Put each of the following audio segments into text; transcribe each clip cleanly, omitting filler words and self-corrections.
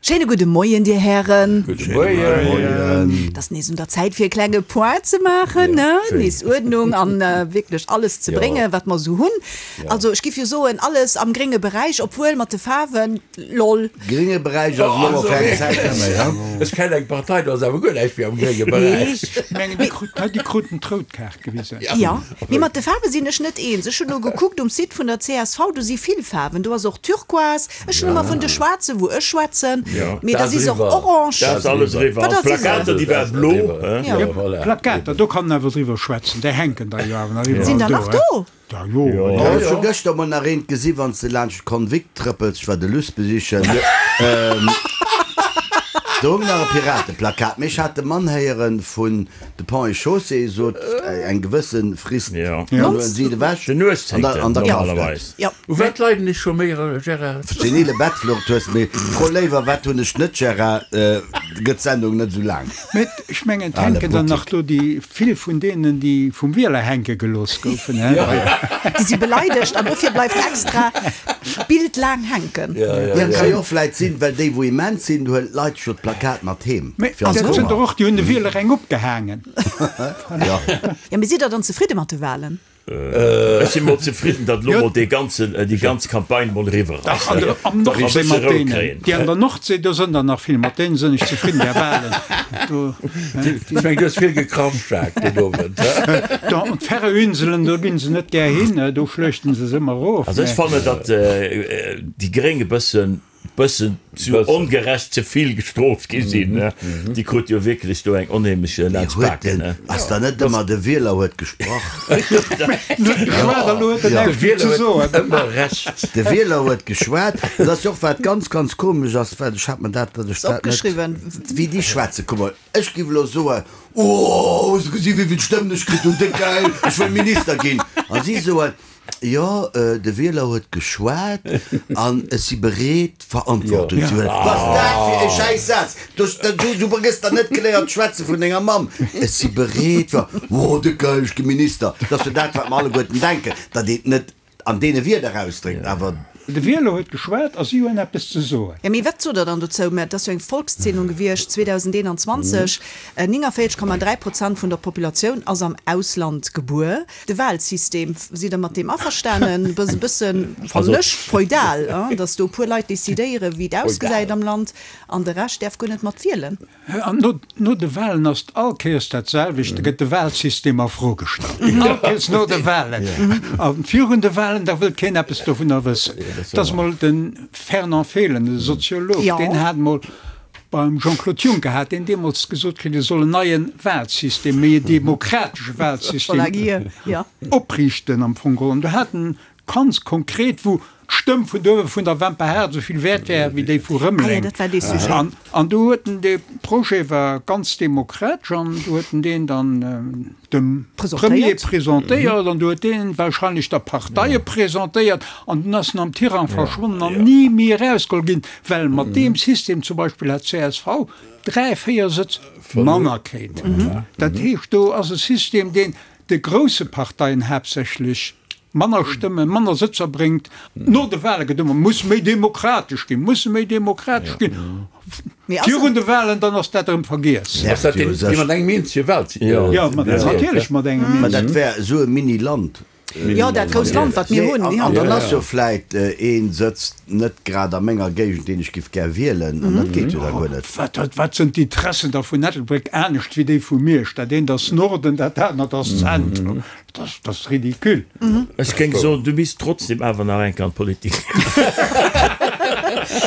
Schéine gudde Moien, Dir Hären. Gudde Moien. Et ass nees un der Zäit fir e klenge Point ze maachen, ne? Nees Uerdnung an wierklech alles ze bréngen, wat mer esou hunn. Also ech giff jo soen, alles am grénge Beräich, obwuel mat de Faarwen, lol. Grénge Beräich ass elo mol fir eng Zäit net méi, he? Ech kennen eng Partei, do ass awer guer näischt méi am grénge Beräich. Ech mengen, déi kruten d'rout Kaart gewisen. Jo, mee mat de Faarwe sinn ech net eens. Ech hunn elo gekuckt um Site vun der csv, do si vill Faarwen. Do ass och Turquoise, Ech hunn ëmmer vun de Schwaarzen, wou ech schwätzen, mee da si se och orange. Dat ass alles eriwwer. An d'Plakater, déi ware blo. Jo, Plakater, do kann en awer driwwer schwätzen, déi hänken da jo awer nach iwwerall do. Sinn der nach do? Da jo. Ech hu gëschter mol nach eent gesi wann s de laanscht d'Convict trëppels, ech war de Luss besichen, do hung nach e Pirateplakat, mee ech hat de Mann héieren vun De Pont et Chaussée sot eng gewësse Frist, dann huelen si et ewech Den 18. an da kascht normalerweis. et. U wat leiden ech scho méi, Gérard? Senile Bettflucht hues, mee fro léiwer wat hunn ech net, Gérard, gëtt d'Sendung net esou laang. Mee ech mengen, et hänken der nach do déi vill vun deenen, déi vum Wieler hänke gelooss goufen. Déi si beleidegt an dofir bleift extra d'Bild laang hänken. Jo, et ka jo och vläit sinn, well déi wou immens sinn, huelen d'Leit jo d'Plakat mat heem. Mee dat sinn der och, déi hunn de Wieler eng opgehaangen. Jo. Jo, mee sidd der dann zefridde mat de Wahlen? Ech si mol zefridden, datt elo mol dee ganzen, déi ganz Campagne mol eriwwer ass. Dach, an der, am Nordsee mat deenen, déi an der Nordsee, do sënn der nach vill, mat deene sënn ech zefridden, där Wahlen do. Ech mengen, du hues vill gekrampft, Jacques, den Owend, he? Do, an d'Färöerinselen, do ginn se net gär hin, do schluechten se se ëmmer erof. Also ech fannen, datt déi Gréng e bëssen bëssen zu ongerecht ze vill gestrooft gi sinn. Déi krut jo wierklech do eng onheemlech laanscht d'Baken. Ass da net ëmmer de Wieler huet gesprach? De Wieler huet ëmmer Recht. De Wieler huet geschwat. Dat ass jo och wat ganz, ganz komesch ass, well ech hat mer dat, datt ech dat net, wéi déi schwätzen. Kuck mol, ech géif elo soen, Oh, hues de gesi wéi vill Stëmmen ech kritt hunn, déck gäil, ech wëll Minister ginn. A si soen, Jo, de Wieler huet geschwat an ech si bereet, Verantwortung ze huelen. Wat ass dat fir e schäiss Saz? Du gëss der net geléiert schwätze vun denger Mamm. Ech si bereet, ver. Oh, de geil, ech gi Minister. Dat ass jo dat, wat mer alleguerten denken, datt een et net an deene Wierder ausdréckt, awer. De Wieler huet geschwat a si hunn eppes ze soen. Jo, mee wat sot Der dann dozou? Mä et ass jo eng Volkszählung gewiescht 2021, 49,3 Prozent vun der Populatioun ass am Ausland gebuer. De Wahlsystem, sidd Der mat deem averstanen? E bëssen, fannen ech, feudal, datt do e puer Leit decidéieren, wéi et ausgesäit am Land, an de Rescht däerf guer net mat wielen. An no de Wahlen ass et all Kéiers dat selwecht, da gëtt de Wahlsystem a Fro gestallt. All Kéiers no de Wahlen. A virun de Wahlen, da wëllt keen eppes dovunner wëssen. Et ass emol de Fernand Fehlen, e Soziolog, deen hat emol beim Jean-Claude Juncker, hat deen deemools gesot kritt, e soll en neie Wahlsystem, méi e demokratesche Wahlsystem opriichten am Fong geholl. An do hat en Ganz konkret, wou d'Stëmm vun do vun der Wemper Haard esou vill wäert wär wéi déi vu Rëmeleng. An do huet en, dee Projet war ganz demokratesch an do huet en deen dann dem Premier presentéiert an do huet deen wahrscheinlech der Parteie presentéiert an dunn ass en am Tirang verschwonnen an ni méi erausgeholl ginn, well mat deem System zum Beispill hat csv 3, 4 Sëtz manner kritt. Dat heescht, do ass e System, deen de grousse Parteien haaptsächlech manner Stëmmen, manner Sëtzer bréngt. No de Wahle gëtt ëmmer, muss méi demokratesch ginn, musse méi demokratesch ginn. Virun de Wahlen, dann ass dat erëm vergiess. Ass dat deen, dee mat engem eenzege Wahl. Jo, natierlech mat engem eenzegen. Mä dat wär esou e Mini-Land. Jo, dat grousst Land, wat mir hunn. An dann ass jo vläit ee Sëtz net grad a menger Géigend, deen ech giff gär wielen, an dat geet jo da guer net. Wat sinn d'Interessen da vun Ettelbréck anescht wéi déi vu Miersch? Dat eent ass Norden, dat anert ass Zentrum. Dat ass ridicule. Ech géing soen, du misst trotzdem awer nach eng Kéier an d'Politik.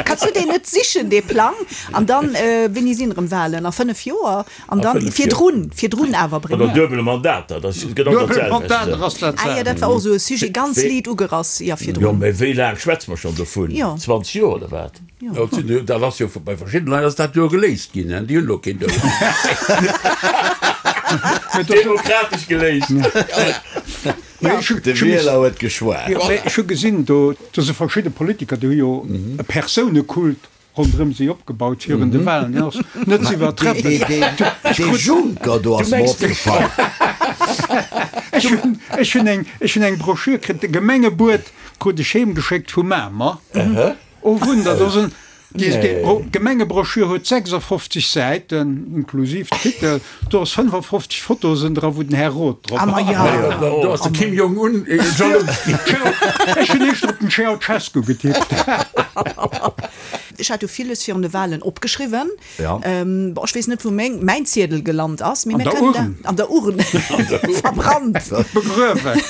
Kanns du deen net sichen, dee Plang, an dann, wéini sinn erëm Wahlen? A 5 Joer? An dann virdrun, virdrun awer bréngen. Oder duebel Mandater, dat ass genau dat Duebel Mandater ass dat Ah jo, dat war och esou e Sujet, ganz liit ugerass, jo, virdrun. Jo, mä wéi laang schwätze mer schonn dovun? 20 Joer oder wat? Jo, dat ass jo bei verschiddene Leit ass dat jo geléist ginn, déi hunn elo keen duebel Mandat. Demokratesch geléist. De Wieler huet geschwat. Ech hu gesinn, do si verschidde Politiker, déi hu jo e Persounekult ronderëm si opgebaut virun de Wahlen, deen ass net ze iwwertreffen. Dee Juncker do ass mer opgefall. Ech hunn eng, ech hunn eng Broschür kritt, de Gemengebuet krut ech heemgeschéckt vu Mamer. Oh Wunder, do sinn. D'Gemengebroschür huet 56 Säiten, inklusiv Titel. Do ass 55 Fotosen dra wou den Här Roth drop ass. Do ass de Kim Jong Un jalous ginn. Ech hunn éischter op den Ceaucescu getippt. Ech hat jo villes virun de Wahlen opgeschriwwen. Bon, ech weess net wou meng, mäin Ziedel gelant ass, mee mir kënnen da, an der Urn, verbrannt, begruewen.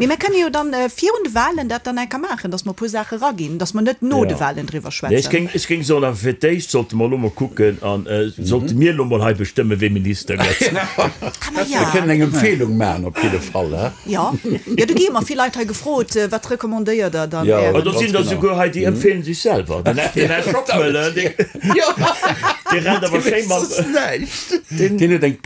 Mee mir kënne jo dann virun de Wahlen dat dann eng Kéier maachen, datt mer e puer Saache eraginn, datt mer net no de Wahlen driwwer Nee, ech schwätzen. géing, ech géing soen, awer fir d'éischt sollte mer elo mol kucken an sollte mir elo mol hei bestëmmen, wee Minister gëtt. Ah, ma Mir ja. kënnen eng Empfehlung maachen op jidde Fall, he? Jo, jo, do gi ëmmer vill Leit hei gefrot, Wat recommandéiert Der dann Jo. Ären? Do sinn der souguer hei, déi empfeelen sech selwer. Den Här Schockmöller, dee rennt awer schéi mat. Deen huet eng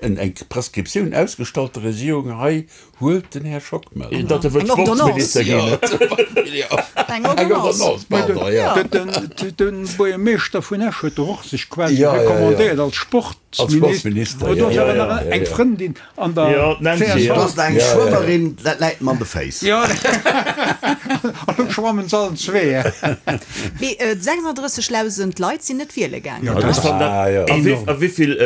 eng Prescriptioun ausgestallt der Regierung, hei huelt den Här Schockmöller. Datt e wëllt Eng Ordonnance. Sportsminister ginn. Eng Ordonnance. Eng Ordonnance, pardon, jo. De Buergermeeschter vun Esch huet doch och sech quasi Jo, jo, jo. recommandéiert als Sportsminister. Als Sportsminister, Do ass jo, awer jo, nach jo, eng jo. Frëndin An der Jo, d'Nancy, csv. jo. Do ass nach eng Schwëmmerin, dat läit mer an de Féiss. Jo, an elo schwammen se allen zwee. Mee 36.000 Leit sinn net wiele gaangen. Jo, dat ass enorm. A wéivill,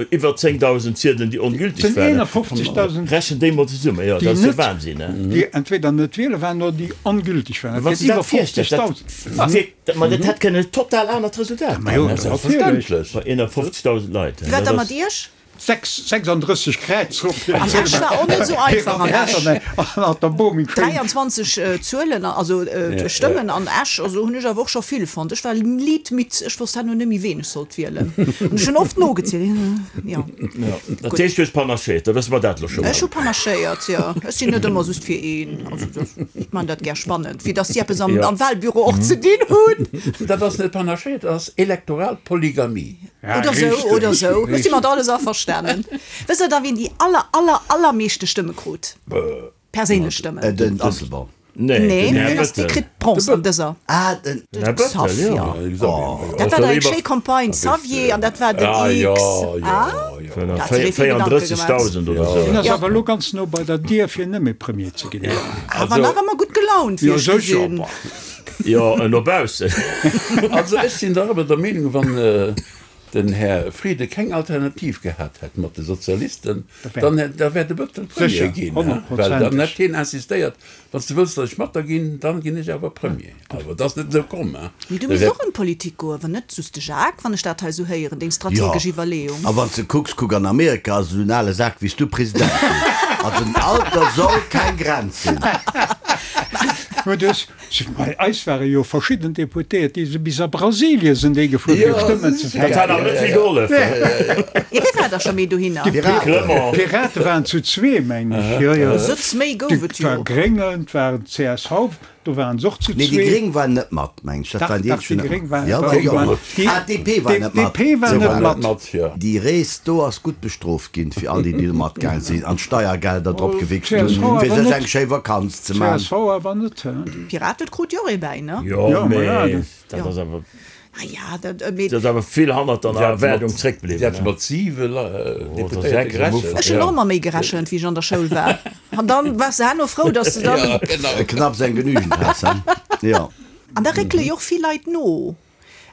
iwwer 10.000 Ziedelen, déi ongülteg Et waren? sinn 51.000. Rechent déi mol zesummen, jo, dat ass jo Wahnsinn, ne? Déi entweder net wiele waren oder déi ongülteg waren. Dat Wann s gëtt de iwwer dat virstells, dat 50.000. wierkt, ma dat hätt kënnen e total anert Resultat Ma jo, ginn. natierlech. Bei 51.000 Leit, Wéi war dat da ass. mat Iech? 36 Kräiz op An Esch war och net esou einfach an Esch. An der Bomi 23 Zuelen, also Stëmmen an Esch, also hunn ech awer och scho vill fonnt. Ech war liit midd, ech wosst herno net méi ween ech sollt wielen. An ech hunn oft nogezielt, jo. Dat heescht du hues panachéiert, da wësse mer dat elo scho mol. Ech hu panachéiert, jo. Ech sinn net ëmmer just fir een. Also ech man dat gär spannend, fir datt si eppes am Wahlbüro och ze dinn hunn. Dat ass net panachéiert, dat ass elektoral Polygamie. Oder sou, oder sou. Ech si mat alles averstanen. Wësst der da, wien déi aller, aller, allermeeschte Stëmme krut? Perséinlech Stëmmen. Den Asselborn. Nee, Nee, den Här deen ass, dee Bëttel. kritt Bronze an dëser. Ah, den. Den Här Bëttel, Xavier. jo. Dat war dach eng schéi Campagne, Xavier, an dat war den X. Ah, dat hat sech ee vill Gedanke gemaach. 34.000 oder sou. Deen ass awer elo ganz no bei der Dier, fir net méi Premier ze ginn. Awer nach ëmmer gutt gelaunt, wéi Jo, ech sécher. gesinn. Jo, no baussen. Also ech sinn dach awer der Meenung, wann den Här Frieden keng Alternativ gehat hätt mat de Sozialisten, dann da wär de Bëttel Premier ginn, well dann hätt hien insistéiert, wann s de wëlls, datt ech mat der ginn, dann ginn ech awer Premier. Awer et ass net esou komm. Mee du misst och an d'Politik goen, wann net just de Jacques, wann ech dat hei esou héieren, deng strategesch Iwwerleeung. A wann s de kucks, kuck an Amerika ass esou en ale Sak wéi s du President ginn. Also den Alter soll keng Grenz sinn. Bei eis ware jo verschidden Deputéiert, déi si bis a Brasilien sinn déi gefuer fir Stëmmen ze Dat hat awer net vill gehollef. Jo, wie war da scho méi dohinner? D'Pirate waren zu zwee, meng ech. Jo, jo. Sëtz méi gouf et Et war jo. Gréngen, et waren csv, do waren se och zu Nee, déi zwee. Gréng waren net mat, meng ech. Dat Dach, waren déi dach, eenzeg, déi déi net Gréng mat. waren, Jo, déi jo. waren, déi, Ah, d'DP war net mat. d'DP war Sou net war mat. et. Mat, jo. Déi Rees do ass gutt bestrooft ginn, fir all déi, déi do matgaang sinn an d'Steiergelder drop gewichst hunn, Csv fir awer sech net. eng schéi Vakanz ze man. Csv awer net, hä? D'Piraten krut jo och ee bäi, ne? Jo, Jo, ma ja, mee dat. dat ass awer. Ah ja, dat, mee. Dat ass awer vill hannert der Erwaardung zréckbliwwen. Si hat mat siwe Deputéierte gerechent. Ech hunn och ëmmer méi gerechent, wéi ech an der Schoul war. An dann waars de herno frou, dass de dann. Knapps eng genügend has, he? Jo. An da réckele jo och vill Leit no,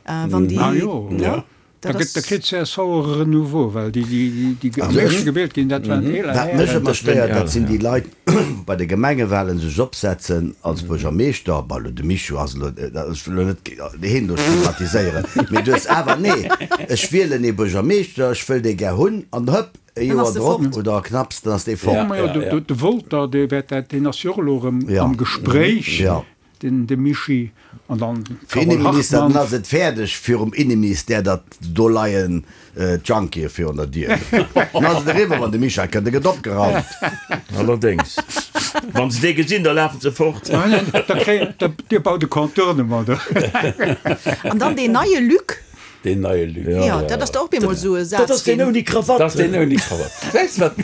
wann déi. Ah jo. Ne? Da Dat gëtt, da ass. kritt csv och e Renouveau, well déi, déi, déi am éischte gewielt ginn, dat waren eeler Wat mech Hären. ëmmer stéiert, dat sinn déi Leit, wou bei de Gemengewahlen sech opsetzen als Buergermeeschter, bon, elo de Michou ass elo, ech wëll elo net heen do stigmatiséieren, mee du hues awer, nee, ech wielen ee Buergermeeschter, ech wëll dee gär hunn, an hëpp, e Dann Joer ass de drop fort. oder knapps, dann ass dee Ja, fort. ma jo, de, de Wolter, dee wäert dat, deen ass jo och elo erëm am Gespréich. Jo. Den de Mischi an dann Fir d'Carole Inneminister, dann Hartmann. ass et fäerdeg virum Inneministère, datt do leien d'Junkie virun der Dier. Dann ass et eriwwer, wann de Michel kënnt, da gëtt opgeraumt. Allerdéngs, wa se dee gesinn, da lafen se fort. Da kréien, da, dir baut e Contournement do. An dann deen neie Luc. Deen neie Luc. Jo, dat ass da och bemol esou e Saz Dat ass deen ginn. ouni Krawatt. Dat ass deen ouni Krawatt. Weess wat?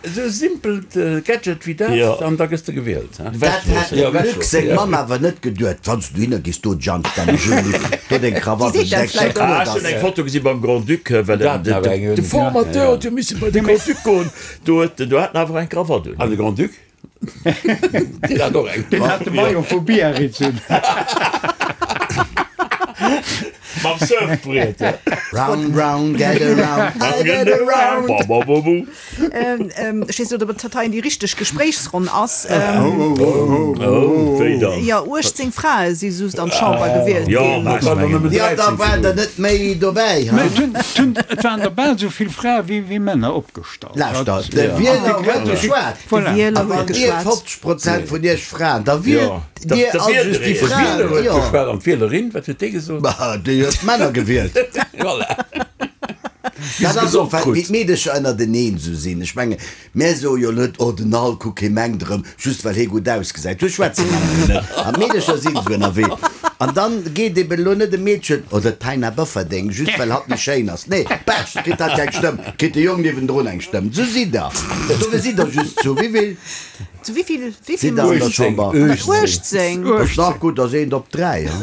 Esou e simpelt Gadget wéi dat, an da gëss de gewielt. Dat hätt dem Luc seng Mamm awer net geduet. Wann s du dohinner gees, do Jang, dann Jean-Luc, do deng Krawatt, Déi seet dat vläicht och. Ah, ech hunn eng Foto gesi beim Grand-Duc, well de Formateur huet jo misse bei de Grand-Duc goen, do huet do hat en awer eng Krawatt un. An de Grand-Duc? Deen hat och eng. Deen hat de Maillot vu Biarritz un. Mam Surfbriet. Round, round, get around, I get around. Ba, ba, ba, bu. Ech weess net, ob et hei déi richteg Gespréichsronn ass. Oh, wéi dann? Jo, 18 Frae si just an d'Chamber gewielt ginn. Jo, da waren der net méi dobäi, ha? Et waren der bal esou vill Frae wéi Männer opgestallt. Lauschter, de Wieler huet geschwat. De Wieler A huet wann Dir geschwat. 50 Prozent vun Iech Fraen, da wielt Dir all just déi De Fraen. Wieler huet Jo. geschwat an d'Wielerin, wat huet déi gesot? Bah, déi huet d'Männer gewielt. Voilà. Dat ass och, well wéi d'Meedecher ënnerteneen esou sinn. Ech menge mär soe jo net, oh den Al, kuck hie mengt erëm, just well hie gutt ausgesäit. Sou schwätze Männer jo net. An d'Meedecher sinn esou ënnerwee. An dann geet eben elo net e Meedchen, oh dat Taina Bofferding, just well hatt méi schéin ass. Nee, Pech, kritt hatt keng Stëmm, kritt de Jong niewendrun eng Stëmm. Sou sidd der. Dofir sidd der just zu wéivill? Zu wéivill? Wéivill Sidd der an der Chamber? 18. Ass nach gutt, ass eent op 3, ha?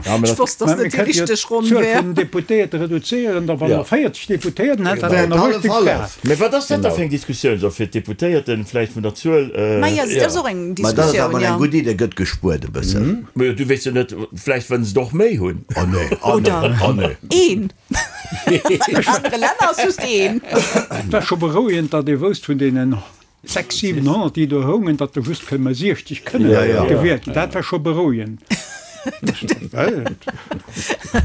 Ech wosst, dass dat déi richteg Ronn D'Zuel wär. vun den Deputéierte reduzéieren, da wa mer 40 Deputéierten hätten, hätte mer Hallef, 80 hallef. Fraen. Mä wat ass dat da fir eng Diskussioun? So fir d'Deputéierten vläicht vun der Zuel. Majo, dat ass och eng Mä dat ass Diskussioun, awer jo. eng gutt Idee, gëtt gespuert e bëssen. Majo, du weess jo net, vläicht wëllen se der och méi hunn. Oh nee, oh nee, oh nee. Een. An anere Länner ass just een. Et war scho berouegend, datt ee wousst vun deenen 600, 700, déi do houngen, datt der just kënne 60 kënne gewielt ginn. Dat war scho berouegend. Dat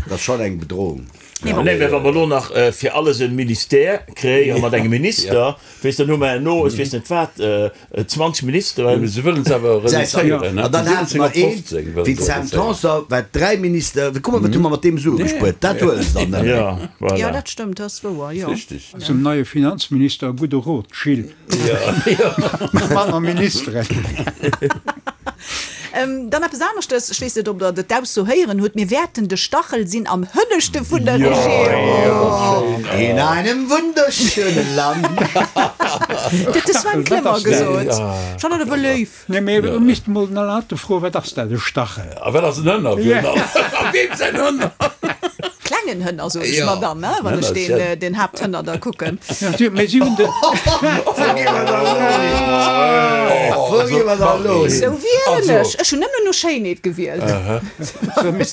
ass schonn eng Bedrohung. Nee, mä wa mer elo nach fir alles e Ministère kréien mat engem Minister, weess, dann hu mer herno, ech weess net wat, 20 Ministeren. Mee se wëllen se awer reduzéieren, An dann hate mer een wéi d'Sam Tanson, wat dräi Minister, kuck mol, wat hu mer mat deem Sue gespuert, dat huele se dann net méi. Jo, voilà. Jo, dat stëmmt, dat ass wouer, jo. Richteg. Zum neie Finanzminister e gudde Rot, Gilles. Manner Ministeren. Dann eppes aneschtes, ech weess net, ob Der dat d'Ausso héieren hutt, Mir wäerten de Stachel sinn am Hënneschte vun der Regierung. In einem wunderschönen Land. Dat huet de Sven Clement gesot. Ech fannen dat awer léif. Nee, mee do misst mol den Alain Atten froen, Wat ass dat, e Stachel? A wat ass en Hënner? A weem säin Hënner? Klengen Hënner, soen ech mer dann, wann ech deen Haapthënner da kucken. Mee si hunn de. Wou gi mer da elo hin? Wou gi mer da elo hin? Sou wielen ech. Ech hunn nëmmen no Schéinheet gewielt,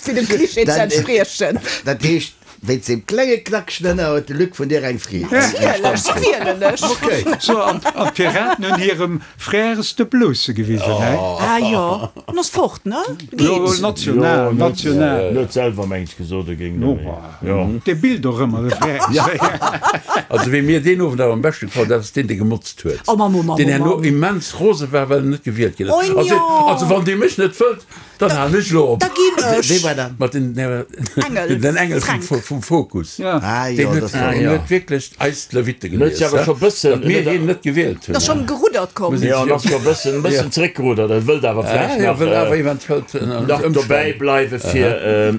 fir dem Klischee ze entspriechen. Dat heescht, Wéinst deem klenge knackegen Hënner huet de Luc vun dir eng Fried. Natierlech, sou wielen ech. Okay. So, an d'Piraten hunn hirem Frères de Blousse gewisen, hä? Ah jo, en ass fort, ne? Jo, Geet. national, national. En huet selwer, meng ech, gesot, e géing net méi. Jo. Dee billt och ëmmer, de Frères. Also, wee mir deen Owend awer am beschte gefall, dat ass deen, dee gemotzt huet. Oh Mann, oh Mann, Deen oh herno Mann. immens rose war, well en net gewielt ginn ass. Oh Also, jo. also wann Dir mech net wëllt, Dann halen ech elo op. Da ginn ech. Wee war dat? Mat den Engel, den Engel vum, Fränk. vum Fokus. Ja. Ah Deen jo, huet, dat war. deen huet wierklech eis d'Lewitte En huet gelies, sech awer scho bëssen, datt mir hien net gewielt hunn. Ass schonn geruddert komm. jo, en ass scho bëssen, e bëssen zeréckgeruddert. En wëllt awer vläicht Ja, nach, wëll awer eventuell nach dobäi bleiwe fir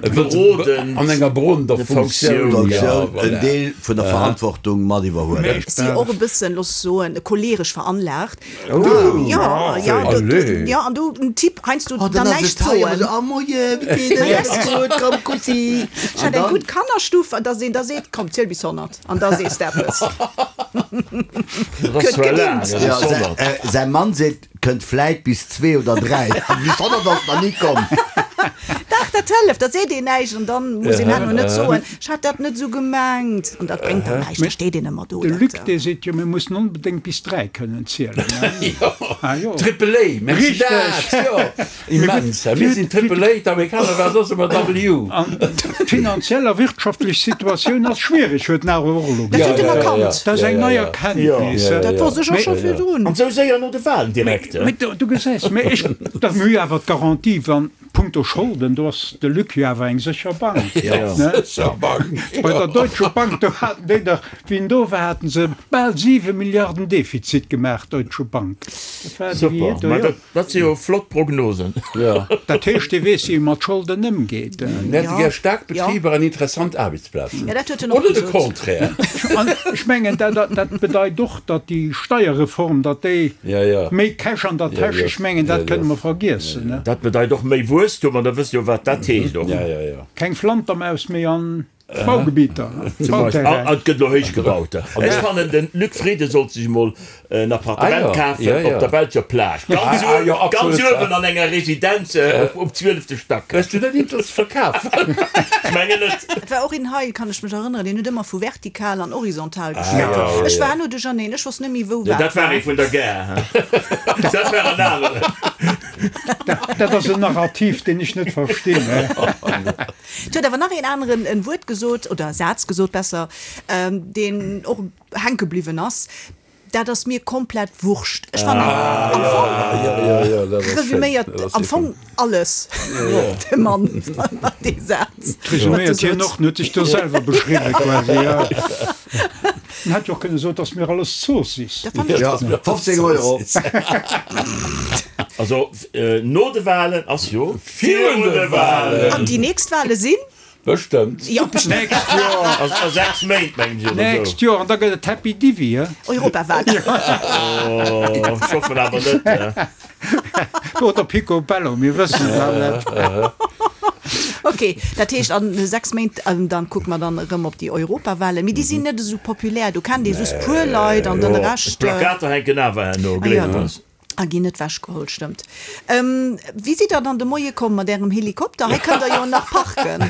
berodend an enger berodender Funktioun. Funktioun. Ja, Funktioun, en voilà. Deel vun der Verantwortung mat iwwerhuelen. Si och e bëssen, looss soen, choleeresch veranlaagt. Ja, ja, du, du, ja, an du en Typ heiansdo Oh, dann dann ass näischt et hei soen. ëmmer sou, oh moie, wéi geet et, alles gutt, komm Kussi. Ech hat eng gutt Kannerstuff, an dass een da seet, komm ziel bis 100, an da sees de eppes. Dat ass zwar laang, dat Ja, ass 100. säi, säi Mann seet, kënnt vläit bis zwee oder dräi, an bis 100 ass nach ni komm. Dach, dat hëlleft, da seet een näischt an dann muss een herno net soen, ech hat dat net esou gemengt, an dat bréngt dann näischt, da steet een ëmmer do. De Dat, Luc, dee seet jo, mir mussen onbedéngt bis 3 kënnen zielen. Ah jo. Triple A, merci Richteg. dat, jo, immens, hä, mir sinn Triple A, d'Amerikaner waren soss ëmmer W. An d'finanziell a wirtschaftlech Situatioun ass schwiereg, huet en awer och elo Dat huet gesot. en erkannt. Dat ass eng nei Erkenntnis. Dat wosst ech och scho virdrun. An esou séier no de Wahlen direkt. Mee du gesäis, mee ech, dat mir hu jo awer d'Garantie, wann, Punkto Scholden, do ass de Luc jo awer eng sécher Bank. Sécher Bank, jo. Bei der Deutsche Bank, do haten déi dach, wéi en do war, haten se bal 7 Milliarden Defizit gemaach, Deutsche Bank. Dat war déi Super, do, ma jo. dat, dat si jo flott Prognosen. Jo. Dat heescht, dee weess, wéi e mat Scholden ëmgeet. Mir hätte gär staark Betriber an interessant Aarbechtsplazen. Jo, dat huet en och Oder de gesot. Contraire. An ech mengen, dat, dat bedeit och, datt déi Steierreform, datt déi méi Cash an der Täsch, ech mengen, dat kënne mer vergiessen. Dat bedeit och méi Wuesstum, an da wësst jo, wat dat heescht och. Keng Flantermaus méi an. Baugebieter, Bauterrain. An et gëtt elo héich gebaut. Ech fannen, de Luc Frieden sollt sech emol en Appartement kafen op der belscher Plage, ganz ganz uewen an enger Residenz um zwielefte Stack. Hues du dat eent verkaf? Ech mengen net. Et war och een hei, kann ech mech erënneren, deen huet ëmmer vu vertikal an horizontal geschwat. Ech war herno duercherneen, ech wosst net méi wou wat war. Dat war ee vun der Gare, dat war en aneren. Dat ass en Narrativ, deen ech net verstinn. Et huet awer nach een aneren en Wuert gesot, oder Saz gesot besser, deen och hänke bliwwen ass, Dat ass mir komplett Wurscht. Ech fannen am Fong resüméiert am Fong alles de Mann mat dee Saz. Resüméiert hien och, en huet sech do selwer beschriwwen quasi, jo. En hätt jo och kënne soen, Et ass mir alles Zoossiss. Dat fannen ech. 15 Euro. Also no de Wahlen ass jo Virun de Wahlen! An déi nächst Wahle sinn? Bestëmmt. Jo, bestëmmt. Nächst Joer. A 6 Méint, mengen ech, oder esou. Nächst Joer, an da gëtt et Happy Divi, he? Europawahlen. Oh, ech hoffen awer net. Oder Pico Bello, mir wëssen et nach net. Ok, dat heescht an 6 Méint, dann kucke mer dann erëm op déi Europawahlen. Mee déi sinn net esou populär, do kennt ee just puer Leit an den Rescht. D'Plakater hänken awer herno, gleeft eis. A ginn net wechgeholl, stëmmt. Wéi sidd der dann de Moie komm mat ärem Helikopter? Hei kënnt der jo nach parken.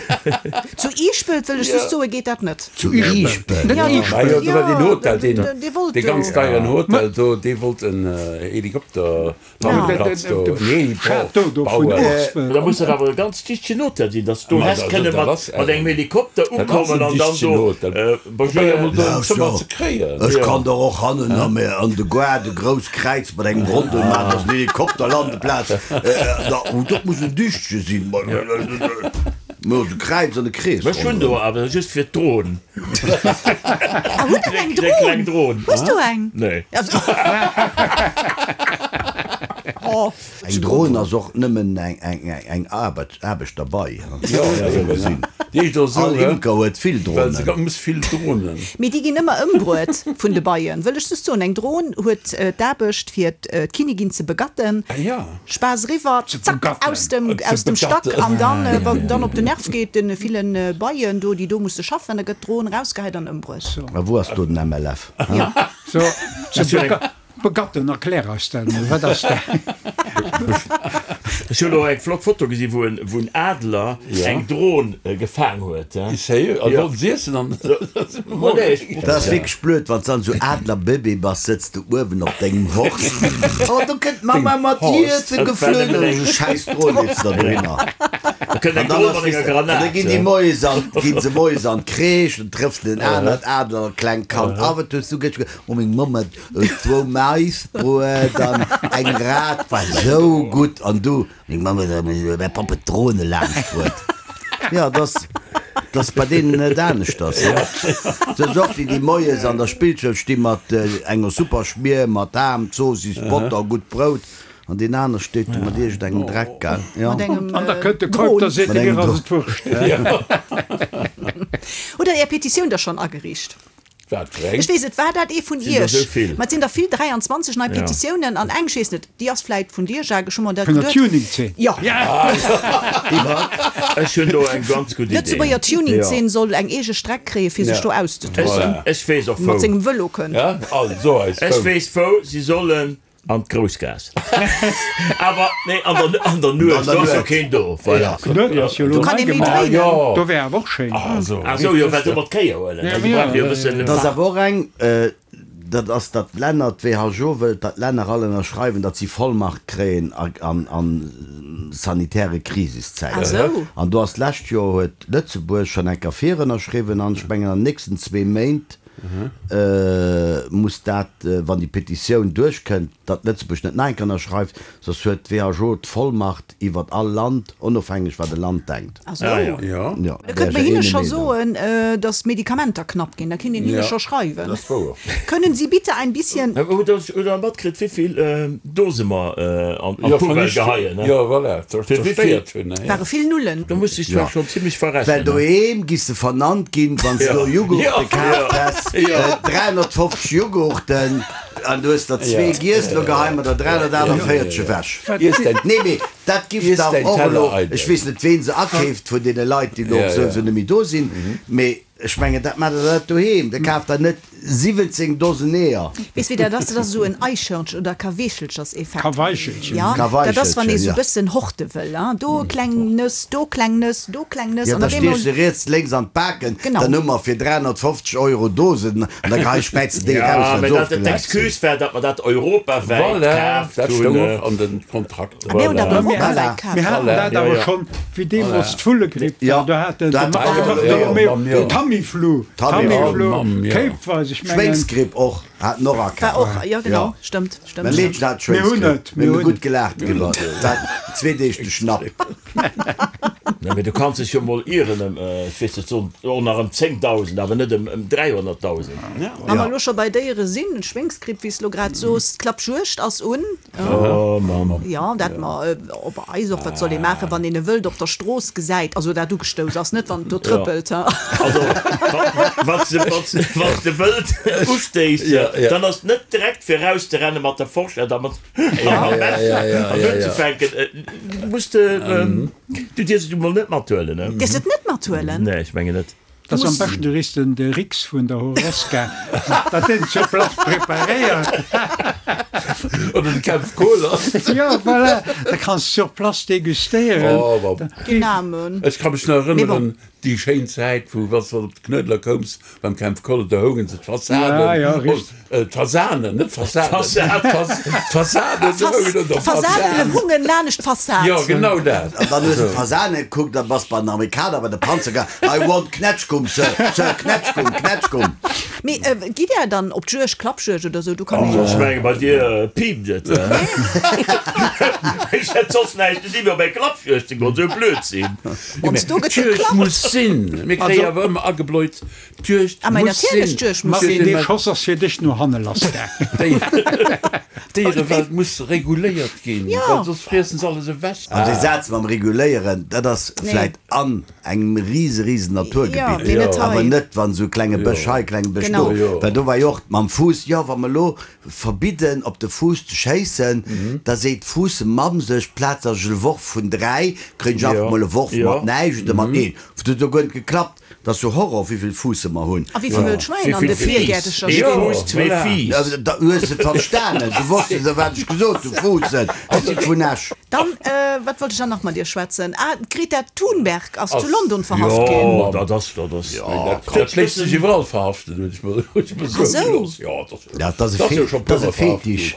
Zu Iischpelt, wëll ech just soen, geet dat net. Zu Iischpelt? Ja, jo, do war deen Hotel, deen, dee wollt dee ganz do. deieren Hotel do, dee wollt en Helikopterlandeplatz do, en Heliport bauen. Da muss dat awer e ganz dichtegen Hotel sinn, datt s du häss kënne mat engem Helikopter ukommen an dann do Ech kann der och hannen an de Goart e grousst Kräiz mat engem Rondel maachen, dass en Helikopterlandeplaz, dat muss en Dichtche sinn, mä e Kräiz an e Krees Ech hunn do awer just fir d'Dron. Ah, hutt der eng Dron? Hues du eng? Nee. Eng Dron ass och nëmmen eng Aarbecht derbei. All Imker huet vill Dronen. Mee déi ginn ëmmer ëmbruet vun de Beien, wëll ech just soen. Eng Dron huet d'Aarbecht fir d'Kinnigin ze begatten. Spaass eriwwer, zack, aus dem Stack an dann, wann en dann op den Nerv geet, de ville Beien do, déi do musse schaffen, da gëtt d'Dron erausgehäit an ëmbruet. A wou ass do den MLF? Begatten, erklär eis dat mol, wat ass dat? Ech hunn och eng flott Foto gesi wou en wou en Adler eng Dron gefaang huet. Sérieux? An wollten se iessen an Dat ass wierklech blöd wann s dann esou Adlerbëbee bass, sëtz de uewen op dengem Horst, oh do kënnt d'Mamma mat Iesse geflunn an esou schäiss Dron leet se der dohinner. An dann ass weess de, an da ginn déi moies an ginn se moies an d'Crèche, dann trëfft en anert Adler klengt Kand, ah wat hues du gëscht ge, oh meng Mamm huet Zwou Maisbruet an eng Rat war sou gutt an du, meng Mamm huet mäi Papp huet d'Drone laanscht bruet. Jo, et ass, et ass bei deenen net aneschters. Sou och wéi déi moies an der Spillschoul sti mat enger super Schmier mat Ham, Zoossiss, Botter, gutt Brout an deen aner steet do mat iergend engem Dreck, gell? Jo. Mat engem An da kënnt de Keup, da seet e, mir ass et Wurscht. Hutt der Är Petitioun da schonn ageriicht? Wat fir eng? Ech weess et, war dat ee vun Sinn der iech? sou vill? Ma et sinn der vill, 23 nei Petitiounen an eng, ech weess net, déi ass vläit vun dir, Jacques, ech hu mer dat Vun der geduet. Tuning-Zeen? Jo. Ech hunn do eng ganz gutt Idee. D'Lëtzebuerger Tuning-Zeen soll eng eege Streck kréien, fir sech do auszetoben. Ech weess och Mat wou. sengem Vëlo kënnt. Ja, also eis Ech wou. weess wou. Si sollen an d'Groussgaass. Awer nee, an der, an der Nuecht, do ass jo keen do. Voilà. D'Nuecht ass jo elo Do kann nei ee méi gemaach. dréinen. Do wär awer och schéin. Ah sou, jo, well se ëmmer d'Kéier huelen. Also brauch jo e bëssen. Et ass awer och eng, dat ass, datt d'Länner, d'WHO wëllt, datt d'Länner all ënnerschreiwen, datt si Vollmacht kréien a sanitäre Krisiszäiten. An do ass d'lescht Joer huet Lëtzebuerg schonn eng Kéier virënnerschriwwen an ech mengen an den nächsten zwee Méint muss dat, wann déi Petitioun duerchkënnt, datt Lëtzebuerg net nach eng Kéier ënnerschreift, soss huet d'WHO d'Vollmacht iwwert all Land, onofhängeg wat e Land denkt. Ah sou. Jo, Da kënnt mer hinne scho soen, datt d'Medikamenter knapp ginn. Da kinnt een hinne scho schreiwen. Dat ass wouer. Können Sie bitte ein bisschen. Hutt Der matkritt, wéivill Dose mer an d'Poubelle geheien? Jo, voilà, zerstéiert hunn. Ware vill Nullen. Do muss sech zwar schonn zimmlech Well verrechnen. doheem giss de vernannt ginn, wann s du Jughurte kaaft häss. 350 Jughurten an du hues der zwee giess, lo geheie mer der 348 ewech. Nee, mee dat giff dach och elo, ech weess net ween se akeeft vun deene Leit, déi elo souwisou net méi do sinn, mee ech mengen dat maacht der net doheem, der kaaft der net 17 Dosen Eeër. Weess wéi dat ass? Dat ass esou en Eichhörnchen oder Kaweechelcherseffekt. Kaweichelchen. Ja, dat ass wann ee Kaweichelchen, sou ja. bëssen horte wëll, hein, do kleng Nëss, do kleng Nëss, do kleng Nëss Ja, an da op eemol. stiech se riets, lénks an d'Baken, Genau. dann hu mer fir 350 Euro Dosen an da gehei späiz de déi Ja, eraus, wat mä se dat ofgelaf sinn. d'Excuse war, datt mer dat europawäit Voilà, kaaft dat hunn. stoung och an den Kontrakter. A mir hunn dat Voilà. europawäit Voilà. kaaft. Mir haten Voilà. dat Ja, awer ja. schonn, wéi deemools d'Vullegripp Ja, war, do hat den do hat de de Marc Marc Bartolomeo Mamm, jo. Tamiflu, Tamiflu. Tamiflu, Mamm, jo. kéipweis, ech mengen. Schwéngsgripp och, hat en och War akaaft. och, jo genau, stëmmt, stëmmt, Mäi stëmmt. Meedchen hat Mir hunn Schwéngsgripp, et, mir mir hu hunn gutt et. gelaacht driwwer, dat zwee Deeg de Schnapp. Nee, mee du kanns dech jo mol ieren ëm, ech weess net, soen och nach ëm 10.000, awer net ëm 300.000. Wa mer elo scho bei Déiere sinn, Schwéngsgripp, wéi s de elo grad soos, d'Klappjuegd ass un. Oh Mann. Jo, dat mer op eis och, wat soll ee maachen, wann een e Wëld op der Strooss gesäit, also dat ugestouss ass, net wann et do trëppelt. Also wann s de Wëld ustéiss, dann ass et net direkt fir erauszerennen mat der Forschett a mat mam Messer an unzefänken. Muss de, du dierfs et emol net mathuelen. Dierfs et net mathuelen? Nee, ech mengen net. Dat ass am beschten, du riffs den de Rix vun der Horesca, datt deen sur place preparéiert. Oder de Kempf Kohler. Jo, voilà, da kanns de sur place degustéieren. Oh, wa. Dyname. Ech ka mech nach erënneren, déi schéin Zäit, wou, wann s de op de Knuedler koums, beim Kempf Kohler, do houngen se d'Fassaden. Ja, ja, richtig. D'Fasanen, net Fassaden. D'Fasaden houngen un der Fassad. D'Fasanen hungen lanescht d'Fassad. Jo, genau dat. An dann hues de d'Fasane gekuckt a bass bei den Amerikaner bei de Panzer gaang, I want Knätschgumm, Sir, Sir, Knätschgumm, Knätschgumm. Mee gitt Där dann op d'Juegd, Klappjuegd oder sou? Do kann ee jo. Ech menge bei dir piipt et. Ech hätt soss näischt ze di wéi op eng Klappjuegd ze goen, sou blöd sinn. Ons do gëtt D'Juegd geklappt. muss sinn. Mir kréie awer ëmmer agebläut, D'Juegd Ah, muss sinn. d'Juegd muss Martin, sinn. dee Schoss ass fir dech no hanne lass gaangen. D'Déierewelt muss reguléiert ginn, well soss friessen se alles ewech. An dee Saz mam Reguléieren, dat ass vläit an engem rise, risen Naturgebitt, awer net wann esou klenge Bësch hei, klenge Bësch do, well do war jo och mam Fuuss, jo wa mer elo verbidden op de Fuuss ze schéissen, da seet d'Fuussemamm sech, plaz dass ech e Worf vun 3 kréien ech einfach mol e Worf mat näischt oder mat een. Dat huet jo guer net geklappt. 't ass jo Horror wéivill Fuusse mer hunn. A wéivill wëll Schwäin an de Virgäertecher Ee stinn. Fuuss, zwee Fiiss. Da hues de verstanen, du wosst jo wat ech gesot hunn, Fuussen, ech si vun Esch. Dann, wat wollt ech dann nach mat dir schwätzen? Ah, d'Greta Thunberg ass zu London verhaft ginn. Jo, dat ass, dat ass. Dat léisst sech iwwerall verhaften, hunn ech mer soe gelooss. Jo, dat ass e Fetisch.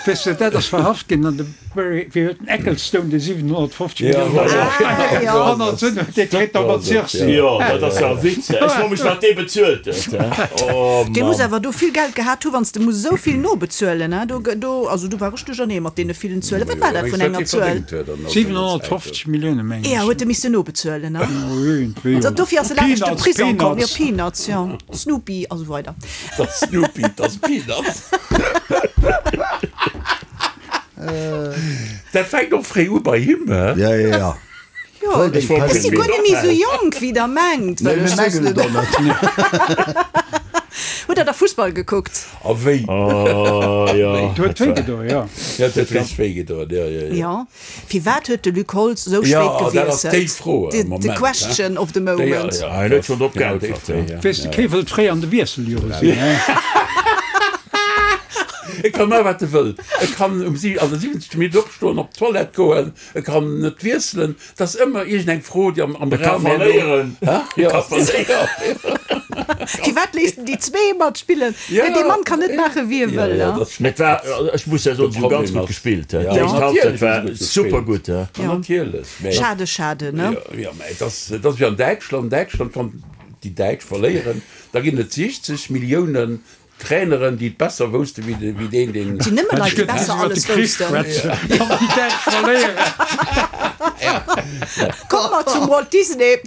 Weess de, dat ass verhaft ginn an de Wéi huet den Ecclestone déi 750 Millioune hannert sinn huet, dee kritt da mat Sursis. Jo, dat ass jo e Witz. Ech froe mech, wat dee bezuelt huet. Oh Dee muss Mann. awer do vill Geld gehat hu wann s de muss esou vill nobezuelen. Do, do, also do war ech duerchernee mat deene villen Zuelen. Wat war dat vun enger Zuel? 750 Millioune mengen ech. Jo, huet e missen nobezuelen, ne? Dofir ass e laanscht de Prisong komm. Jo, Peanuts, jo. Snoopy a sou weider. Dat Snoopy, dat Peanuts. Dat fänkt och fréi u bei him, he? Ja, ja, ja. Jo, ech si guer net méi esou jonk, wéi der mengt. Nee, mir mengen et och net. Hutt der da Fussball gekuckt? A wéi? Oh, jo. Et huet wéi gedoen, jo. Ja, et huet ganz wéi gedoen, jo, jo, jo. Jo. Firwat huet de Luc Holtz esou spéit Jo, dat ass déi gewiesselt? Fro am The Moment, question of the moment. Déi, Hien huet schonn drop geäntwert. Weess de, kee wëllt fréi an de Wiesseljore sinn, he? E ka maachen, wat e wëll. E kann um si an der 70. Minutt opstoen, op d'Toilette goen, e kann net wiesselen. Et ass ëmmer iergendeng Fro, déi am am E ka Raum herno. verléieren. Hä? E ka verléieren. Firwat léisst en déi zwee matspillen? Ja. Dee Mann kann net maachen, wéi e Ja, wëll, ja, he? dat ass Mee et war, ech muss ja soen, si hu De ganz Problem gutt ass- gespillt, he. Ja, Déi éischt natierlech Halbzeit hu se war gutt super gespillt. gutt, he. Ja, natierlech, mä. Schade, schade, ne? Ja, ja, mä et ass, et ass wéi an Däitschland. Däitschland, wann déi Däitsch verléieren, da ginn et 60 Milliounen Traineren, déi et besser woussten, wéi deen, deen. Et sinn nëmme Leit, déi besser alles woussten. Komme mer zum Walt Disney.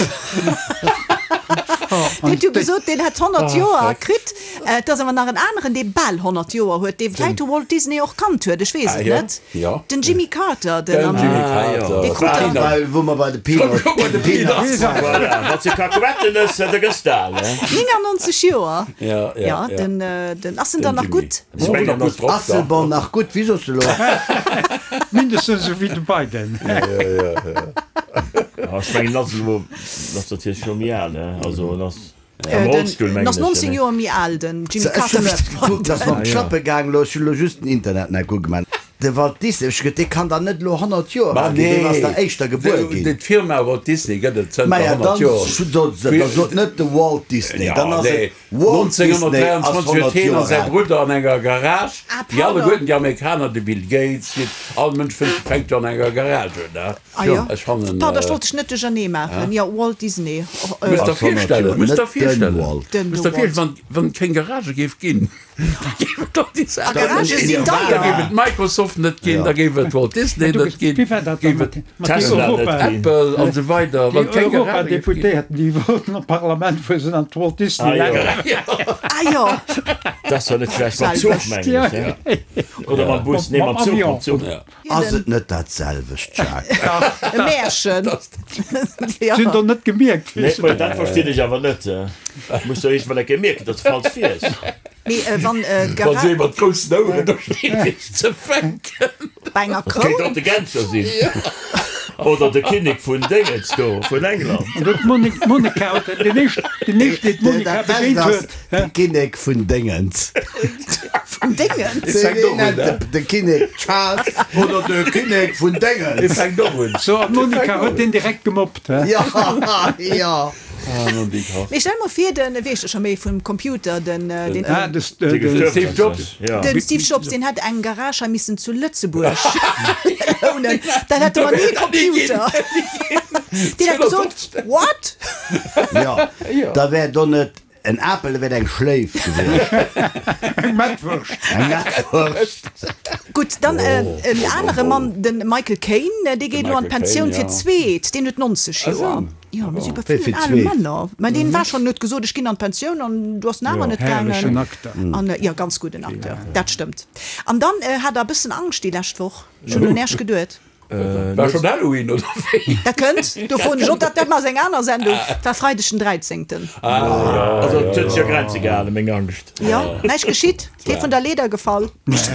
Deen huet jo gesot, deen hätt 100 Joer kritt. Et ass awer nach en aneren, dee bal 100 Joer huet, dee vläicht de Walt Disney och kannt huet, ech weess et net. Den Jimmy Carter, den dee krut der. Wou mer bei de Peanuts waren. Voilà, mat de Kakuettennëss, da gëss de al, he? 99 Joer, jo, den, den, ass en dann nach gutt? Ass en bon nach gutt? Wéi soss de lo? Mindestens esou wéi de Biden. Ech mengen, ass elo, ass natierlech scho méi al, he? Also en ass am Rollstull, En mengen ass ech. 19 Joer méi al, den Jimmy Carter, wéi de Biden. Ass mer op d'Schlappe gaang elo, ech hunn elo just den Internet nach ugemaach. De Walt Disney, ech gëtt, dee kann dann net elo 100 Joer al ginn, deen ass da éischter gebuer ginn. D'Firma Walt Disney gëtt et zënter Maja, 100 dann Joer. sot se, da sot net de Walt Disney, dann ass et Walt Disney ass 1923 huet 100 hien a Joer säi al. Brudder an enger Garage, Ah, wéi pardon. alleguerten déi Amerikaner, de Bill Gates, wéi all Mënsch fënnt, fänkt jo an enger Garage un, ne? Ah jo, Ech fannen. Pardon, ech wollt dech net duerchernee maachen. Jo, Walt Disney. Muss der Ass 100 virstellen, Joer, muss der net den virstellen, Walt. Den muss der Walt. virstellen, wann, wann et keng Garagë géif ginn. Da géif et och déi Saach A Garagë net sinn ginn. Da deier. géif et Microsoft net ginn, da géif et Walt Disney Du, net ginn, wéi war dat géif dann et mat mat déi Tesla net Europa, ginn. Apple an esou weider, déi wann keng Garagë géif ginn. Europadeputéierten, déi wollten an d'Parlament fueren, sinn an d'Walt Ah Disney jo. Land. Ah jo, Dat ass jo net schlecht. Mam Zuch, Selwecht. mengen ech, he? Oder mam Bus? Nee, mam Mam Zuch, mam Avion. Zuch. Ass et net dat selwecht, Jacques? E Märchen. Si hunn der net gemierkt. Nee, mä dat verstinn ech awer net. Muss der iergendwann eng Kéier mierken, datt s de falsch fiers. Mee wann Wa si mat groussen Oueren do stinn, fir sech ze fänken. Bei enger Kéint och Kroun. de Genscher sinn. Oder de Kinnek vun Déngens do, vun England. An huet d'Monica, den éischten, den éischten, deen d'Monica Dat Bescht begéint ass, huet. de Kinnek vun Déngens. Vun Déngens? Fänkt och un, ne? De Kinnek Charles oder de Kinnek vun Dee Déngens. fänkt och un. So, an d'Monica huet deen direkt gemobbt, he? Jo, jo. Ah, Monica. Mee stell mol vir, den, wéi heescht e scho méi, vum Computer, den, den. Ah, de Steve Jobs. Den Steve Jobs, deen hätt eng Garage hei missen zu Lëtzebuerg lounen, dann hätte mer ni e Computer. Deen hätt gesot, What? Jo, da wär do net en Apel, da wär et eng Schléif gewiescht. Eng Mettwurscht. Eng Mettwurscht. Gutt, dann en anere Mann, de Michael Caine, dee geet elo an d'Pensioun fir d'zweet, deen huet 90 Joer. Jo, mir si bei villen ale Männer. Mä deen war schonn, huet gesot, ech ginn an d'Pensioun an du ass en awer net gaangen. Herrlechen Acteur. An jo, ganz gudden Acteur, dat stëmmt. An dann hat der e bëssen Angscht déi lescht Woch. Ech hunn un Äech geduet. War schonn Halloween oder wéi? Dat kënnt, do froen ech och, dat dat ass eng aner Sendung. Et war Freideg den Dräizéngten. Also et huet sech a Grenze gehalen, meng Angscht. Jo, näischt geschitt, kee vun der Leeder gefall.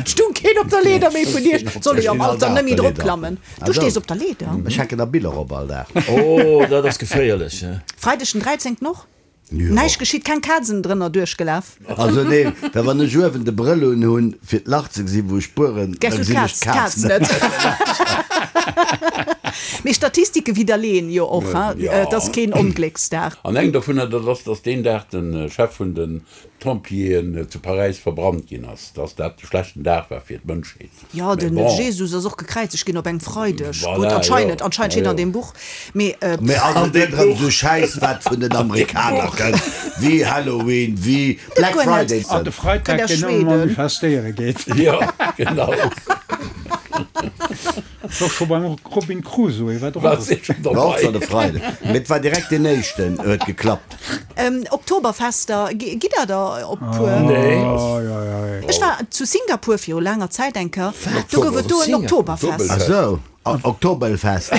Stung keen op der Leeder méi vun Iech? Soll ee jo am Alter net méi drop klammen. Du stees op der Leeder? Ech hänken der Biller op all Dag. Oh, dat ass geféierlech. Freideg den 13. Och? Näischt geschitt, keng Kazen drënner duerchgelaf? Also nee, well wann ech uewen de Brëll un hunn fir d'Lach ze gesinn wou ech spueren, da Gess du gesinn ech d'Kaz d'Kaz net. net. Mee Statistike widderleeën jo och, hein, et ass keen Onglécksdag. An eng dovunner, dat ass, datt deen Dag de Chef vun de Pompjeeën zu Paräis verbrannt ginn ass, dass dat e schlechten Dag war fir d'Mënschheet. Jo, Mee den bon. Jesus ass och gekräizegt ginn op engem Freideg. Gutt, Voilà, anscheinend, jo. anscheinend steet Ja, an jo. deem Buch. Mee. Mee ass et net erëm esou Schäiss wat vun den Amerikaner kënnt, wéi Halloween, wéi Black guer net. Friday? An de Freitag, Kënnt aus deen ëmmer Schweden. manifestéiere geet. Jo, genau. War scho beim Robin Crusoe, war War drop. se schon War och schonn dobei. de Freideg, mee et war direkt deen éischten, huet geklappt. Oktoberfester, gitt der der op puer? Nee. Ech war zu Singapur viru laanger Zäit eng Kéier, do gouf et do en Oktoberfest. Ach sou, Oktoberfest.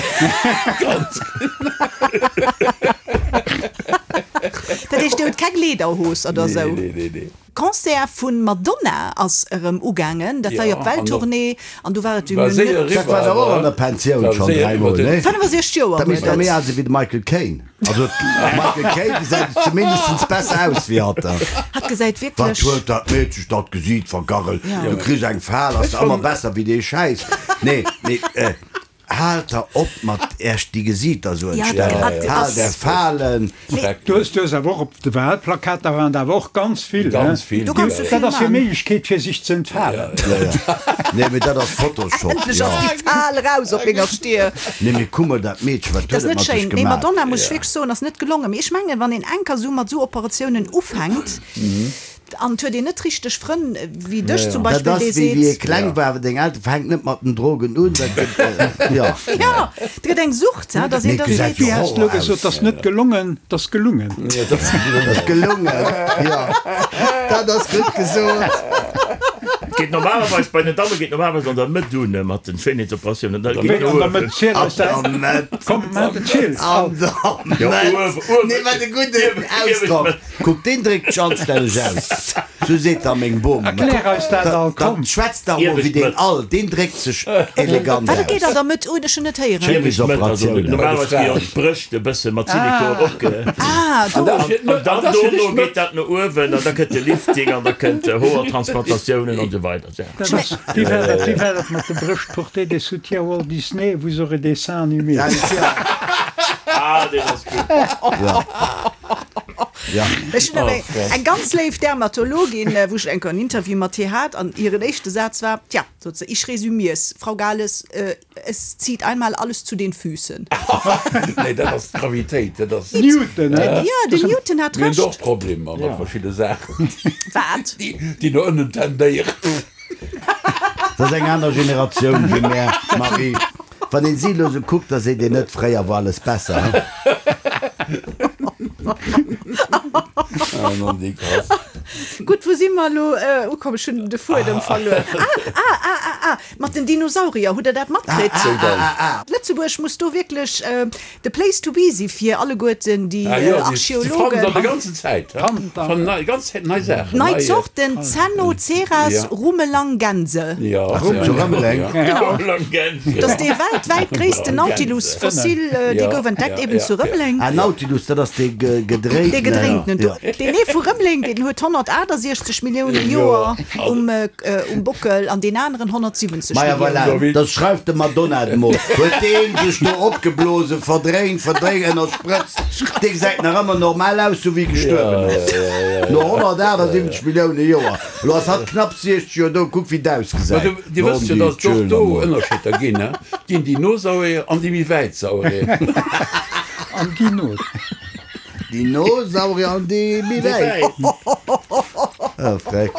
Dat heescht, dir hutt keng Lederhos oder sou? Nee, nee, nee. Concert vun Madonna ass erëm ugaangen, dat war jo op Welttournée an du war et War séier net. Dat war dach och an der Pensioun schonn dräimol, nee? 65 Joer Da misst huet der méi et. al sinn wéi de Michael Caine. Also de Michael Caine gesäit zumindest besser aus wéi hatt. Hatt gesäit Wat wierklech. huet dat Meedchen dat Gesiit vergarrelt? Ja. Du kriss eng Fal, ass der ëmmer besser wéi dee Schäiss. Nee, mee. Haalt der op mat äerch déi Gesiiter sou entstellen. Haalt är Falen. Du hues du hues awer och op de Wahlplakater waren der awer och ganz vill, he? Ganz vill. Do kanns du Dat vill ass hir man. Méiglechkeet fir sech ze entfalen. Ja, ja. Nee, mee dat ass Photoshop, Endlech jo. ass déi Fal eraus op menger Stier. Nee, mee kuck mol dat Meedchen, wat Dat ass huet et net mat sech schéin. Mee gemaach? Madonna, muss ech wierklech soen, ass net gelongen. Mee ech mengen, wann een enker sou mat sou Operatiounen ufänkt. An et huet een net richteg Frënn wéi dech zum Beispill, Dat ass dee wéi wéi ee seet. kleng war, deng Elteren, fänkt net mat den Drogen un, dat gëtt, jo. Jo, et gëtt eng Sucht, he, dass een Mee da gesäit seet. jo Wéi has de elo Horror gesot, aus. 't ass net gelongen, 't ass gelungen. Jo, 't ass gelungen. Ass gelungen, jo, dat ass gutt gesot. Geet normalerweis, bei den Damme geet normalerweis an der Mëtt un mat den Schéinheetsoperatiounen, da geet Wéi no an der uewen. Mëtt? Ziel An eis dat. der Mëtt. Komm, maach den Ziel. An der Jo, Mëtt. uewen, uewen. Nee, wat e gudden Ausdrock. Kuck, deen dréckt sech anstänneg aus. Sou seet da meng Bom. Erklär eis dat all, komm. Dann schwätzt dach mol wéi deen all. Deen dréckt sech elegant Wat, et geet aus. an der Mëtt un? Ech hunn net héieren. Schéinheetsoperatiounen. Normalerweis gi jo d'Brëscht e bësse mat Silikon opge. Ah, do. An dann dono geet dat no uewen an da kënnt de Lifting an da kënnt Hoertransplantatiounen an esou weider. Dat ass, wéi war dat, wéi war dat mat de Brëscht? Portez des soutiens Walt Disney, vous aurez des seins animés. Ah, deen ass gutt. Ech hunn awer eng ganz léif Dermatologin, wou ech eng Kéier en Interview mat hir hat an hiren éischte Saz war, Tja, sot se, ich resümier's, Frau Gales, es zieht einmal alles zu den Füßen. Nee, dat ass d'Gravitéit, dat ass. Newton, he? Jo, den Newton hat Mir hunn Recht. och Problemer mat verschidde Saachen, Wat? déi no ënnen tendéieren. Dat ass eng aner Generatioun wéi mär, Marie. Wann een si elo sou kuckt, da seet een net, fréier war alles besser, he? Gutt, wou si mer elo ukomm? Ech hunn de Fuedem verluer. Ah, ah, ah, ah, ah, mat den Dinosaurier, hutt Der dat matkritt? Lëtzebuerg muss do wierklech De Place to be si fir alleguerten déi Archeologen. Nei Zorten, Zennoceras rumelangense. Dat ass dee weltwäit gréissten Nautilus-Fossil, dee gouf entdeckt eben zu Rëmeleng. Ah, Nautilus, dat ass dee gedréintenen. Dee gedréintenen do. Deen ee vu Rëmeleng, deen huet 168 Millioune Joer um Bockel an deen aneren 170 Maja voilà, Milliounen. da schreift de Madonna et mol. Huet deen sech do opgeblosen, verdréint, verdréint, ënnersprëtzt. Dee gesäit nach ëmmer normal aus, sou wéi gestuerwen ass. No 178 Millioune Joer. Elo ass hatt knapp 60 Joer do, kuck wéi d'ausgesäit. Dir wësst jo, datt et och do Ënnerscheeder ginn, he? Et ginn déi no Sauerier an déi méi wäit Sauerier. An déi no. Déi no Saurier an déi méi wäit. Oh, freck.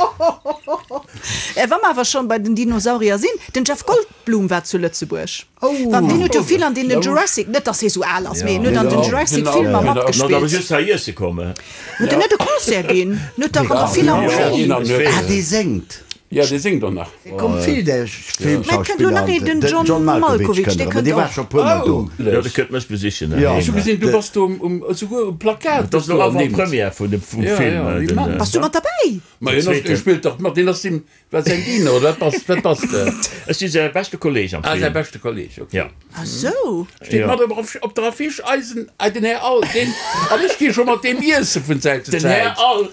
Wa mer awer schonn bei den Dinosaurier sinn, den Jeff Goldblum war zu Lëtzebuerg. Well deen huet jo vill an deenen Jurassic, net dass hie sou al ass, mee en huet an den Jurassic Filmer matgespillt. Huet en net e Concert ginn? En huet dach an der Philharmonie. Ah, dee séngt. Jo, dee séngt och nach. Et kommt vill där Mä et kënnt elo nach een, den Filmschauspiller John an den John Malkovich, Malkovich dee kënnt erëm, kënnt dee war och. scho puer Mol do. Jo, dee kënnt mech besichen. Jo. Ech hu gesinn, du bass do um, esouguer um Plakat. Dat ass elo Avant-Première vun dem vum Film. Den. Bass du mat derbäi? Ma hien ass, hie spillt dach mat, deen ass deem, wat säin Diener oder wat bass, wat bass de? Ech si säi beschte Kolleg am Ah, säi Film. beschte Kolleg, ok. Jo. Ah sou. Steet mat op, op der Affiche, eisen, den Här All, deen, an ech gi scho mat deem iesse vun Zäit zu Den Här Zäit. All.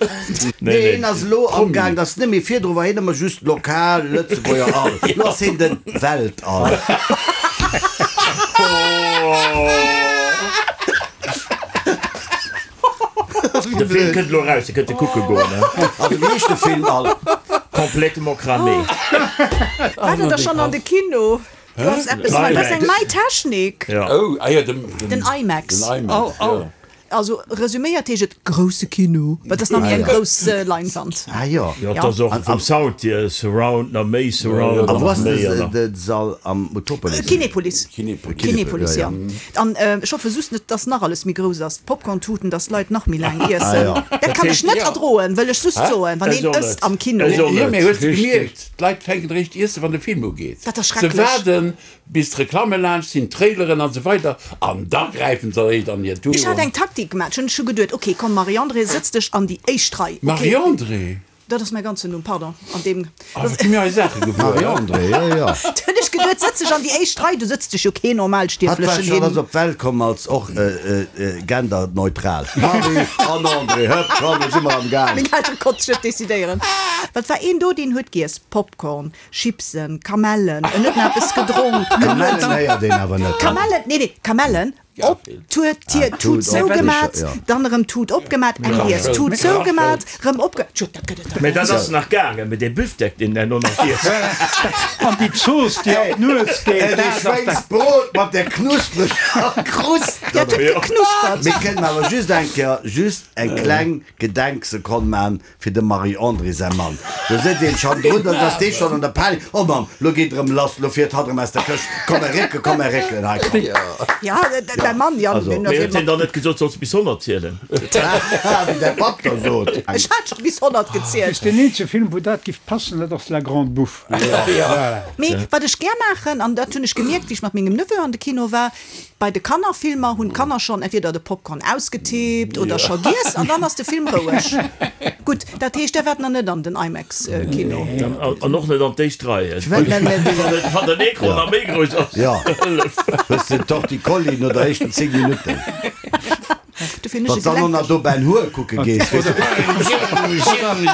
Nee, Nee, hien ass elo amgaang, dat ass net méi, virdru war hien ëmmer just lokal Lëtzebuerger All, elo ass hien den Weltall. De Film kënnt elo eraus, Dir kënnt e kucke goen. Also wéi heescht de Film All? Complètement cramé. War der da schonn an de Kino? Du has eppes nei, dat ass eng nei Technik. Oh, ah jo, den, Den IMAX. Den IMAX, jo. Also resüméiert heescht et grousse Kino, well dat ass nach méi eng grouss Leinwand. Ah jo. Jo, et ass och vum Sound hier Surround, nach méi Surround. A wou ass nach méi an nach. de Sall? Am Utopolis? Kinepolis. Kinepolis. Kinepolis, jo. An ech hoffe just net, dass nach alles méi grouss ass, d'Popcorn-Tuten, dass d'Leit nach méi laang iessen. Dat kann ech net erdroen, wëll ech just soen, wann een ësst am Kino. Jo, mee hues de gemierkt, D'Leit fänken eréischt iessen, wann de Film ugeet. Dat ass Se schrecklech. waarden, bis d'Reklamme laanscht sinn, d'Traileren an esou weider, an da gräifen se eréischt an hir Tut. Ech hat eng Taktik gemaach. Ech hunn ech hu geduet, ok, komm Marie-Andrée, sëtz dech an déi éischt Rei. Ok. Marie-Andrée? Dat ass mäi ganzen Numm, pardon. An deem. Ah, wat gi mir hei Saache gewuer. Marie-Andrée, jo, jo. Da hunn ech geduet, sëtz dech an déi éischt Rei, do sëtzt dech jo keen Hatt war Normalstierflechen schon hin. ass op d'Welt komm als och genderneutral. Marie an André, hëpp, komm, lo si mer am Gaang. Meng Eltere konnte sech net decidéieren. Well et war een do, deen huet giess, Popcorn, Chipsen, Kamellen, en huet nach eppes gedronk, en huet. Kamellen héiert een awer net. Kamellen, nee, nee, Kamellen. Op, d'Tut, d'Tier, d'Tut zougemat, dann erëm d'Tut opgemat, eng giess, d'Tut zougemat, rëm opge. Tjo, dat gëtt et dach Mee dat ass nach gaangen, mee dee Büftek, deen herno nach giess. An déi Zooss, déi an d'Nues geet, dat ass dat. Schwéngsbrot mat där knuspreger Krust. Ja, et huet geknuspert. Mir kënnen awer just eng Kéier just eng kleng Gedenksekonn man Fir dem Marie-Andrée säi Mann. Do sëtzt een schonn drun, dann ass dee schonn an der Panik, Oh Mamm, lo geet erëm lass, lo fiert hatt erëm aus der Këscht, komm mer réckelen, komm mer réckelen, hei komm. Ja, däi Mann, Jan, deen ass. Mee huet hien dann net gesot, solls bis 100 zielen? Haha, wéi däi Papp da sot. Ech hat scho bis 100 gezielt. Deen eenzege Film, wou dat giff passen, dat ass La Grande Bouffe. Voilà. Mee wat ech gär maachen, an dat hunn ech gemierkt, wéi ech mat mengem Neveu an de Kino war, Bei de Kannerfilmer hunn d'Kanner schonn entweder de Popcorn ausgetippt oder scho giess an dann ass de Film roueg. Gutt, dat heescht, där waart nach net an den IMAX-Kino? An och net an d'éischt Rei, wann den Ecran nach méi grouss ass. Hëllef! Hues de den Torticolli no der éischten 10 Minutten? Dofir hunn ech Wann s dann och nach do Ben Hur kucke gees, weess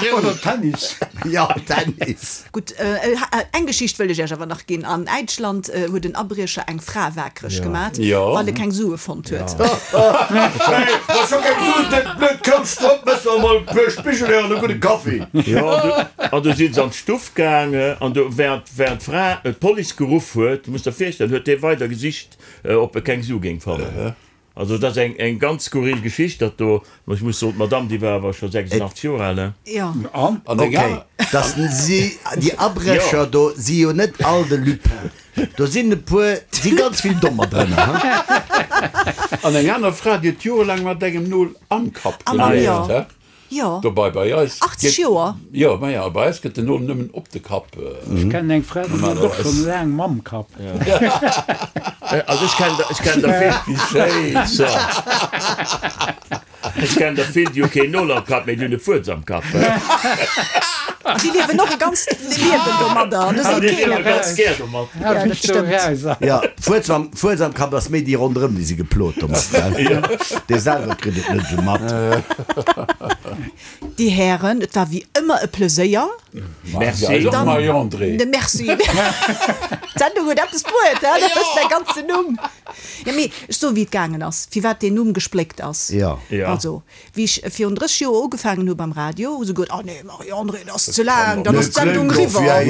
de. Oder Tennis. Jo, Tennis. Gutt, eng Geschicht wëll ech Iech awer nach ginn. An Äitschland huet en Abriecher eng Fra waakreg gemat, well e keng Sue fonnt huet. Hey, wa scho keng Suen, dat blöd Kouschtromp, mëss mer emol e puer Spigelhörer an e gudde Kaffi. Jo, an du si se an d'Stuff gaange an do, während d'Fra d'Police geruff huet, muss der virstellen, huet dee weider gesicht, ob e keng Su géing fannen. Also dat ass eng eng ganz skurril Geschicht dat do. Mä ech muss soen, d'Madame déi war awer scho 86 Joer al, ne? Jo. An? An Ok, dass si, déi Abrécher do si jo net all de Lupin. Do sinn e puer, si ganz vill Dommer drënner, ha? An eng aner Fra, déi huet jorelaang mat engem Nol am Kapp gelieft, he? Jo. Dobei bei eis. 80 Joer. Jo, maja, bei eis gëtt den Nol nëmmen op de Kapp. Ech kennen eng Fra, déi huet och schonn laang mam Kapp. Also ech kennen der, ech kennen der vill. Wéi schéin. So. Ech kennen der vill, déi hu keen Nol am Kapp, mee déi hunn e Fuerz am Kapp. An déi liewen och e ganzt Liewen domadder, an do seet keen eppes. Déi liewe ganz gär domat. Ja, dat stëmmt. Jo, Fuerz am, Fuerz am Kapp ass méi déi ronderëm, déi si geplot domat, gell? Dee selwer kritt et net esou mat. Dir Hären, et war wéi ëmmer e Pleséier. Merci. Eis och, Marie-Andrée. Merci. D'Sendung huet eppes bruet, he? Dat ass mäi ganzen Numm. Jo, mee ech soe wéi et gaangen ass, firwat deen Numm gespléckt ass. Jo. Also, Wéi ech virun 30 Joer ugefaangen hu beim Radio, hu se geot, Oh nee, Marie-Andrée, dat ass ze laang, dann ass d'Sendung eriwwer.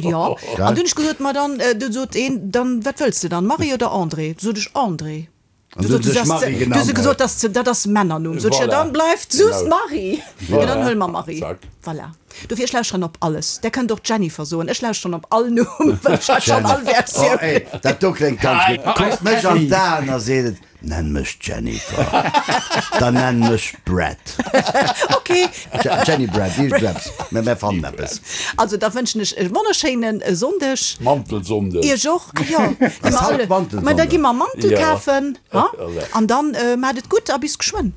Jo, an dunn hu ech gesot, ma dann, du sot een, dann, wat wëlls de dann, Marie oder Andrée? Du sot ech, Andrée. Du sot se, du se gesot, dat ass, dat ass Männernumm. Sot ech, jo, dann bleift just Marie. Jo, dann huele mer Marie. Voilà. Dofir, ech lauschteren op alles. Där kënnt och Jennifer soen. Ech lauschteren op all Numm, well ech hat schonn all Versioun. Oh, ey, dat do kléngt ganz gutt. Kuckt mech an d'Aen a seet et, Nenn mech Jennifer. Dann nenn mech Brad. Ok. Jenny Brad, iergendeppes. Mä mär fannen eppes. Also da wënschen ech e wonnerschéine Sonndeg. Mantelsonndeg. Iech och. Ah jo, gi mer Ass haut alle, Mantelsonndeg? mä da gi mer Mantel kafen, ha? An dann maacht et gutt a bis geschwënn.